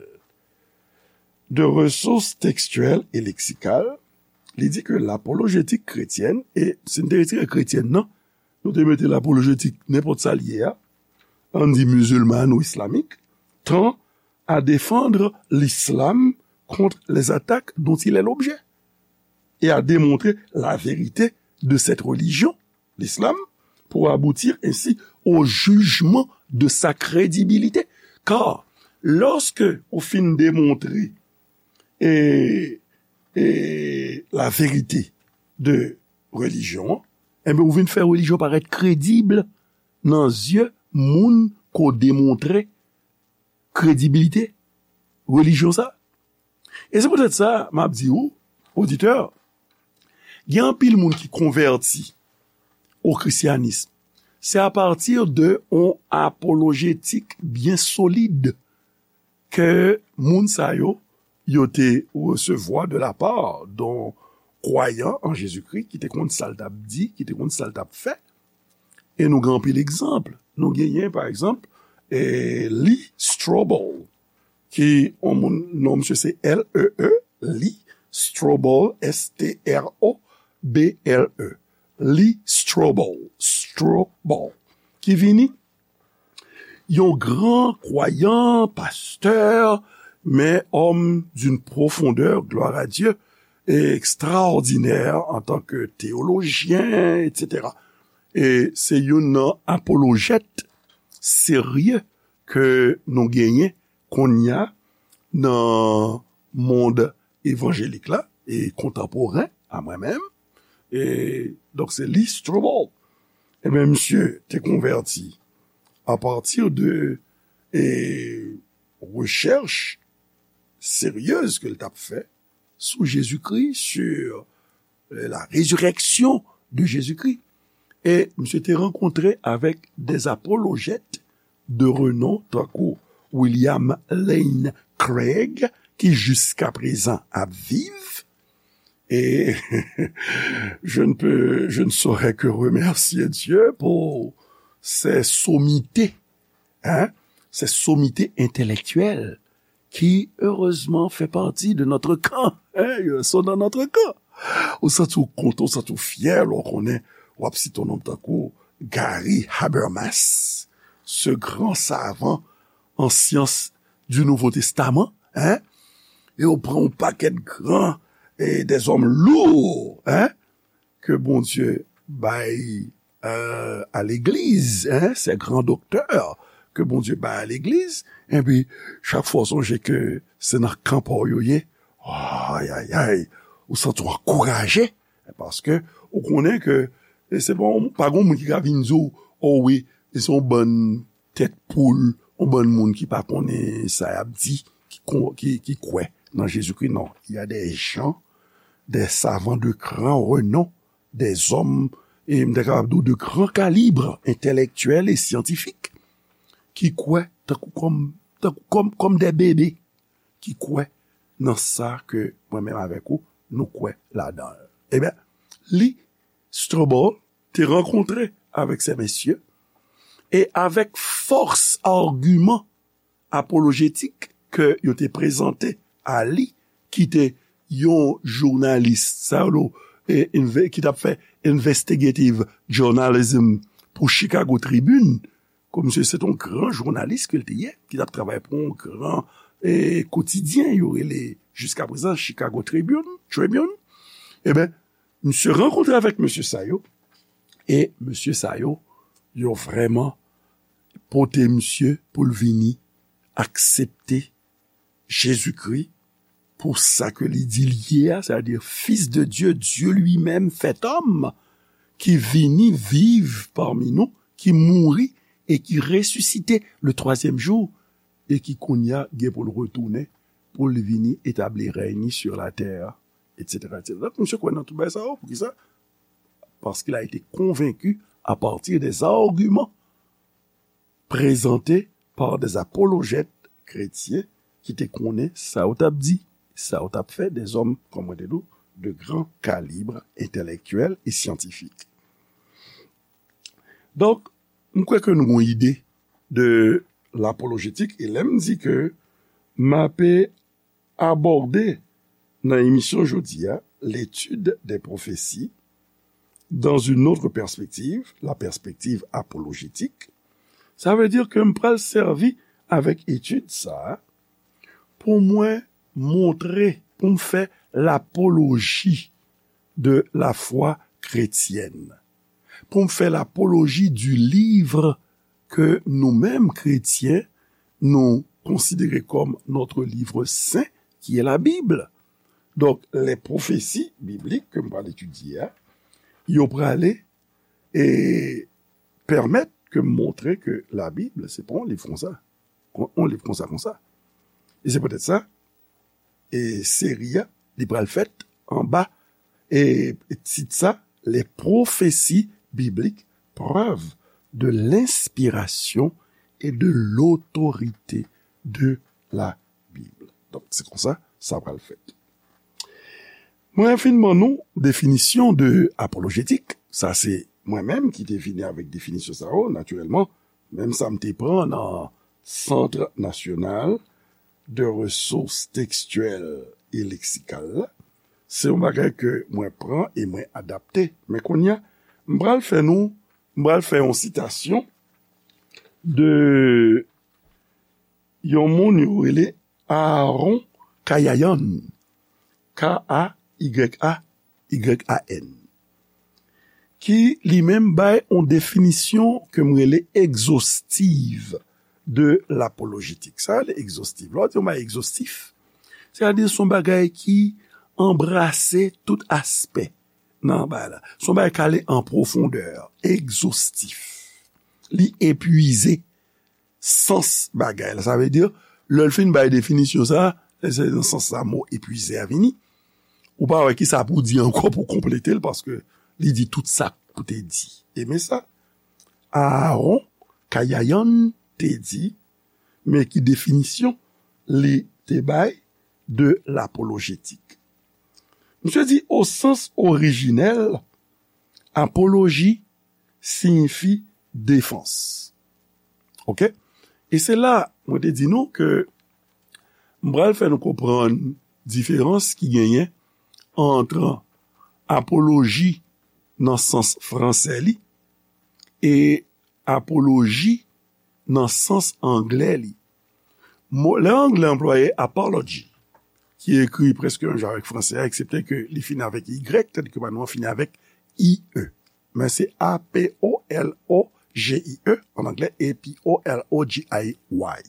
de Ressources Textuelles et Lexicales, li di ke lapolojetik kretyèn, e si n te retire kretyèn nan, nou te mete lapolojetik nenpòt sa l ye a, ann di mizilman ou islamik, tend à défendre l'islam contre les attaques dont il est l'objet et à démontrer la vérité de cette religion, l'islam, pour aboutir ainsi au jugement de sa crédibilité. Car lorsque ou fin demontre e, e la verite de relijyon an, enben, ou vin fè relijyon parèt kredib nan zye moun ke w demontre kredibilite relijyon sa. E se poutèt sa, m ap di ou, oditè, gen anpil moun ki konvèti o krisyanis. Se apati de yon apolojetik byen solid ke moun sa yo, yo te resevwa de la part d'un croyant en Jésus-Christ ki te konn sa l t ap di, ki te konn sa l t ap fè. E nou gen anpil egzanp. Nou genyen, pa egzanp, e, Lee Strobel, ki yon moun, non misye se L E E, Lee Strobel, S T R O B L E. Lee Strobel, Strobel, ki vini yon gran kwayan, pastè, men homme d'une profondeur, gloire à Dieu, extraordinaire en tant que théologien, et cetera. E se youn nan apolojèt serye ke nou genyen kounye a nan mond evanjelik la e kontanporen a mwen menm. E, donk, se Lee Strobel. Ebyen, misye te konvèti apati de, e, rechèch seryez ke l t ap fè sou Jezikri, sur, e, la résurrection de Jésus-Christ. E misye te rankontre avèk des apologètes de renom, tankou William Lane Craig, ki jiska prezan ap viv. E je ne peux, je ne saurais que remercier Dieu pour ces sommités, hein, ces sommités intellectuelles qui, heureusement, fait partie de notre camp. Hein, ils sont dans notre camp. Ou santi w kontan, ou santi w fyè lè w konnen w ap site yon nonm tankou Gary Habermas, ce grand savant en sciences du Nouveau Testament, hein? E w pran yon pakèt gran, e des hommes lourds, hein? Ke Bondye bay, euh, a legliz, hein, ces grands docteurs ke Bondye bay a legliz, enpi chak fwa w sonje ke se nan kan pa w yo ye, ay, ay, ay, ou santi w ankouraje, paske ou konnen ke, e se pa, pa gen moun ki ka vin di w, o wi, e se yon bann tèt poul, yon bann moun ki pa konnen sa y ap di, ki, ki, ki kwè nan Jezikri. Non, il y a des gens, des savants de grand renom, des hommes, e m ta kapab di w, de grand calibre intellectuel et scientifique, ki kwè tankou kòm, tankou kòm, kòm des bébés, ki kwè nan sa ke mwen menm avèk ou, nou kwè ladan l. Ebyen, Lee Strobel te rankontre avèk se mesye, e avèk fòs agiman apolojetik ke yo te prezante a li, ki te yon jounalis, sa yo, e, enve-, ki t ap fè investigative journalism pou Chicago Tribune, ke misye se t yon gran jounalis ke l te ye, ki t ap travay pou yon gran, e, kotidyen, yo rele jiska prezan Chicago Tribune, Tribune. Ebyen, misye rankontre avèk mesye sa yo, e mesye sa yo, yo vrèman pote misye pou l vini aksepte Jezikri pou sa ke li di l ye a, c'est-à-dire Fils de Dieu, Dieu lui-même fait homme, ki vini viv pami nou, ki mouri e ki resisite le twazyèm jou, e ki kounye a gen pou l retounen, pou l vini etabli rèy ni sur la terre, et cetera, et cetera. Donk, misye kwè nan tout bagay sa yo. Poukisa? Parce qu'il a été convaincu à partir des arguments présentés par des apologètes chrétiens ki te konnen sa yo t ap di, sa yo t ap fè, des hommes, kòm mwen te di w, de grand calibre intellectuel et scientifique. Donk, m kwè ke nou gon ide de lapolojetik, e lè m di ke m ape abòde nan emisyon jodi a, l'étude des prophéties dans une autre perspective, la perspective apologétique, sa vle di ke m pral sèvi avèk etid sa a pou mwen montre, pou m fè lapoloji de la foi chrétienne. pour me faire l'apologie du livre que nous-mêmes, chrétiens, nous considérons comme notre livre saint, qui est la Bible. Donk, lè pwofesi biblik ke m pral etidye a, yo prale e pèmèt ke m montre ke Labib, se pa yon liv konsa. Yon liv konsa, konsa. E se poutèt sa, e seri a, li pral fèt anba, e tit sa, Les prophéties bibliques, preuve de l'inspiration et de l'autorité de la Bible. Donk, se konsa sa pral fèt. Mwen fin ban nou definisyon de apolojetik. Sa se mwen menm ki te vini avèk definisyon sa yo, natirèlman. Menm sa m te pran nan Centre National de Ressources Textuelles et Lexicales la. Se yon bagay ke mwen pran e mwen adapte. Men kounye a, m pral fè nou, m pral fè yon sitasyon de yon moun yo rele Aaron Kayayan, K A Y A Y A N, ki li menm bay yon definisyon ke m rele egzostiv de lapolojetik. Sa rele egzostiv. Lè w di yon bagay egzostif, sètadi se yon bagay ki anbrase tout aspè nan bagay la. Se yon bagay k ale an pwofondè, egzostif. Li epuize sans bagay la. Sa vle di, lè l fin bay definisyon sa, se nan sans sa mo epuize a vini. Ou pa wè ki sa pou di ankò pou konplete l, paske li di tout sa pou te di. E men sa, Aaron Kayayan te di, men ki definisyon li te bay de lapolojetik. Misye di, au sens originel, apologie siyifi defans. Oke? E se la, mwen te di nou ke m pral fè nou konprann diferans ki genyen ant apoloji nan sans fransè li e apoloji nan sans anglè li. Mo, lè anglè anplwaye apology, ki ekri prèske menm jan avèk fransè a, eksepte ke li fini avèk Y, tandis ke pa nou an fini avèk I E. Men se A P O L O G I E an anglè, A P O L O G I Y.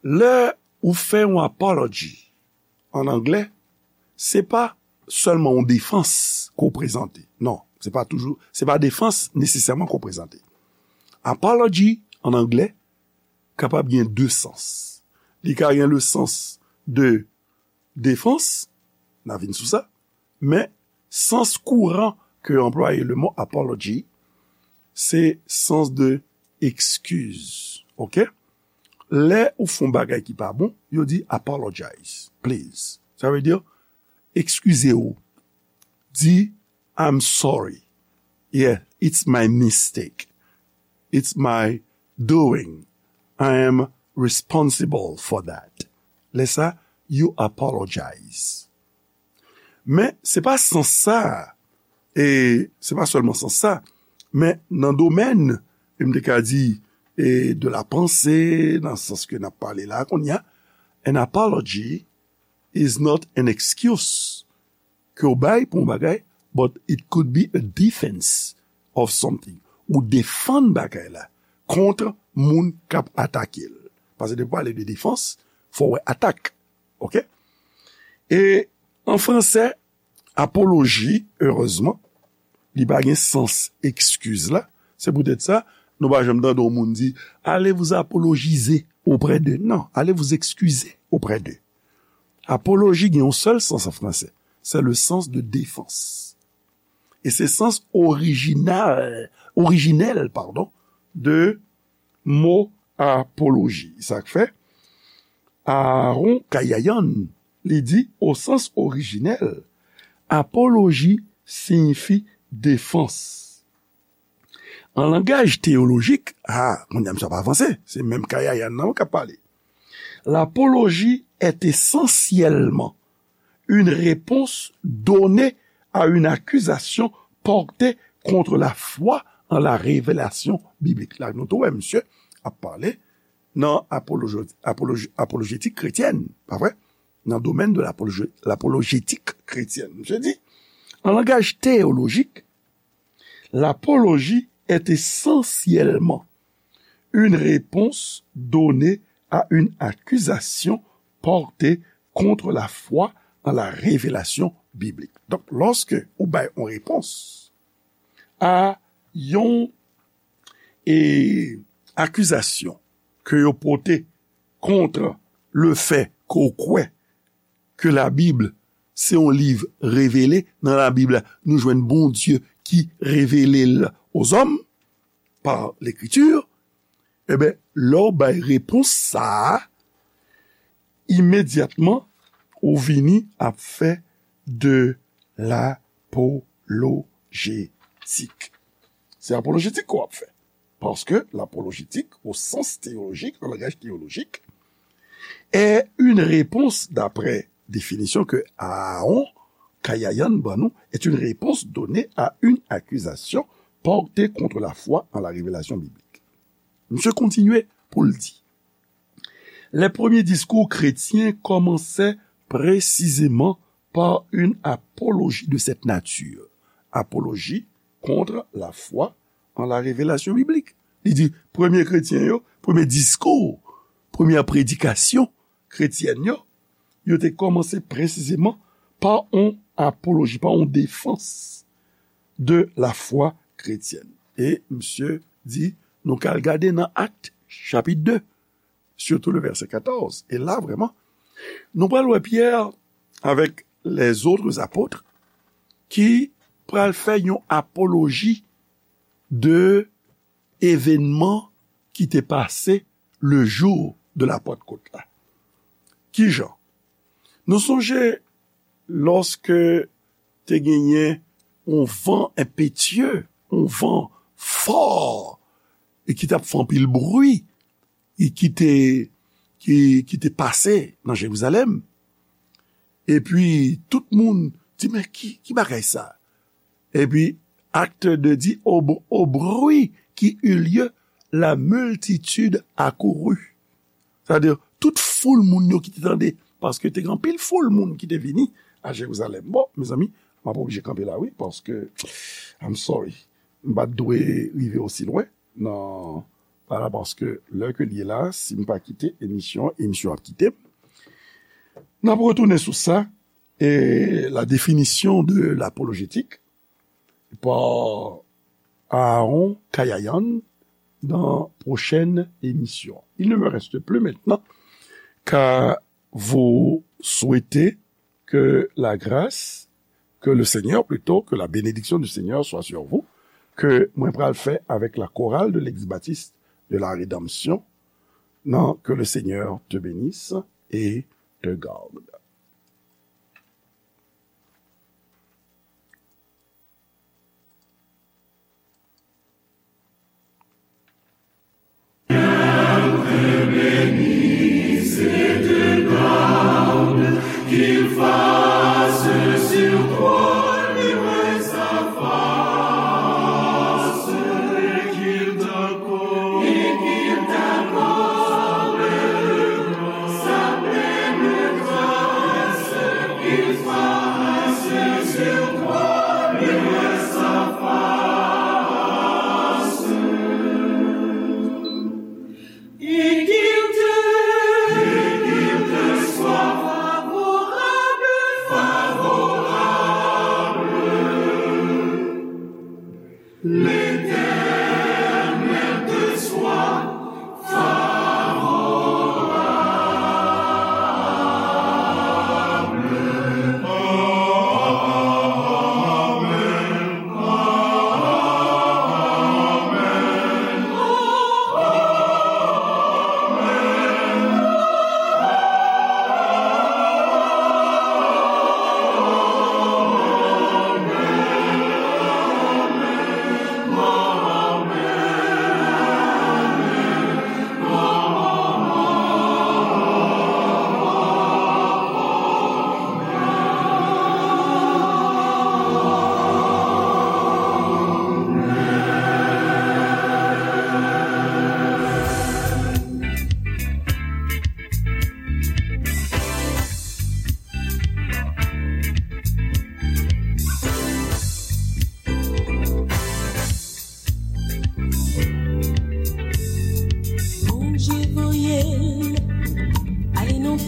Lè ou fè yon apology an anglè, se pa sèlman yon defans ke w prezante. Non, se pa toujou, se pa defans nesesèman ke w prezante. Apology an anglè kapab gen de sans. Li ka gen le sans de defans, n a vin sou sa, men sans kouran ke anplwaye le mo apology, se sans de excuse. Oke? Lè ou fè yon bagay ki pa bon, yo di apologize, please. Sa vle di, eskize w. Di, I'm sorry. Yeah, it's my mistake. It's my doing. I am responsible for that. Lè sa, you apologize. Men, se pa sans sa, e se pa sèlman sans sa, men nan domèn, e m te ka di, e de la panse, nan sans ke n ap pale la, kounye a, an apology is not an excuse ke w bay pou yon bagay, but it could be a defense of something. Ou defann bagay la kont moun k ap atake l. Paske depi w pale de defans, fò w wè atak. Oke? E an fransè, apoloji, erezman, li pa gen sans eskiz la. Se poutèt sa, nou pa janm tande yon moun di, allez vous apologiser auprès d'eux. Non, allez vous excuser auprès d'eux. Apoloji gen yon sèl sans an fransè. Se le sens de défense. E se sans orijinal, orijinèl, padon, de mo apoloji. Sa k fè, Aaron Kayayan, li di, au sens originel, apoloji siyifi defans. An langaj teyolojik, a, kounye a misye ap avanse, se menm Kayayan nan k ap pale. L'apologie est essentiellement une réponse donnée à une accusation portée contre la foi en la révélation biblique. La, nou tou wè misye ap pale nan apoloji-, apoloji-, apolojetik kretyèn, pa vre? Nan domèn de l'apoloji-, l'apolojetik kretyèn. Misye di, an langaj teyolojik, L'apologie est essentiellement une réponse donnée à une accusation portée contre la foi en la révélation biblique. Donk, lòske ou bay yon repons a yon e, akizasyon ke yo pote kont le fè ke w kwè ke Labib se yon liv revele, nan Labib la, nou jwenn Bondye ki revele l ozòm pa Lekriti, eben, lè w bay repons sa a, imedyatman, ou vini ap fè de lapolojetik. Se apolojetik ke w ap fè. Paske lapolojetik, o sans teyolojik, an langaj teyolojik, est une réponse, d'après définition que Aaron Kayayan ban nou, est une réponse donnée à une accusation portée contre la foi en la révélation biblique. Misye kontinye pou l di, les premiers discours chrétiens commençaient précisément par une apologie de cette nature. Apologie contre la foi en la révélation biblique. Li di, premye kretyen yo, premye diskou, premyè predikasyon kretyèn yo, yo te kòmanse presizeman pa yon apoloji, pa yon defans de la foi chrétienne. E misye di, nou ka al gade nan Akt, chapit de, surtout le verset quatorze. E la, vrèman, nou pral wè Pyè avèk les autres apôtres ki pral fè yon apoloji de evènman ki te pase le jou de la Pantkot la. Kijan? Nou sonje lòske te genyen yon van enpetye, yon van fò, e ki t ap fè anpil bri, e ki te, ki, ki te pase nan Jerizalèm. Epi, tout moun di, men ki, ki bagay sa? Epi, Acte deux di, au, au bruit qui eut lieu, la multitude accourut. Sa vle di, tout foul moun yo ki te tande, paske te gen anpil foul moun ki te vini a Jerizalèm. Bon, mezanmi, m ap oblije kanpe la, wi, paske, I'm sorry, m pa t dwe rive osi lwen nan, vwala, paske lè ke l ye la, si m pa kite emisyon, emisyon ap kite m. N ap retounen sou sa, e la définition de l'apologétique par Aaron Kayayan dans prochaine émission. Il ne me reste plus maintenant qu'à vous souhaiter que la grâce, que le Seigneur plutôt, que la bénédiction du Seigneur soit sur vous, ke mwen pral fè avèk la chorale de l'Église baptiste de la Rédemption, nan, que le Seigneur te bénisse et te garde.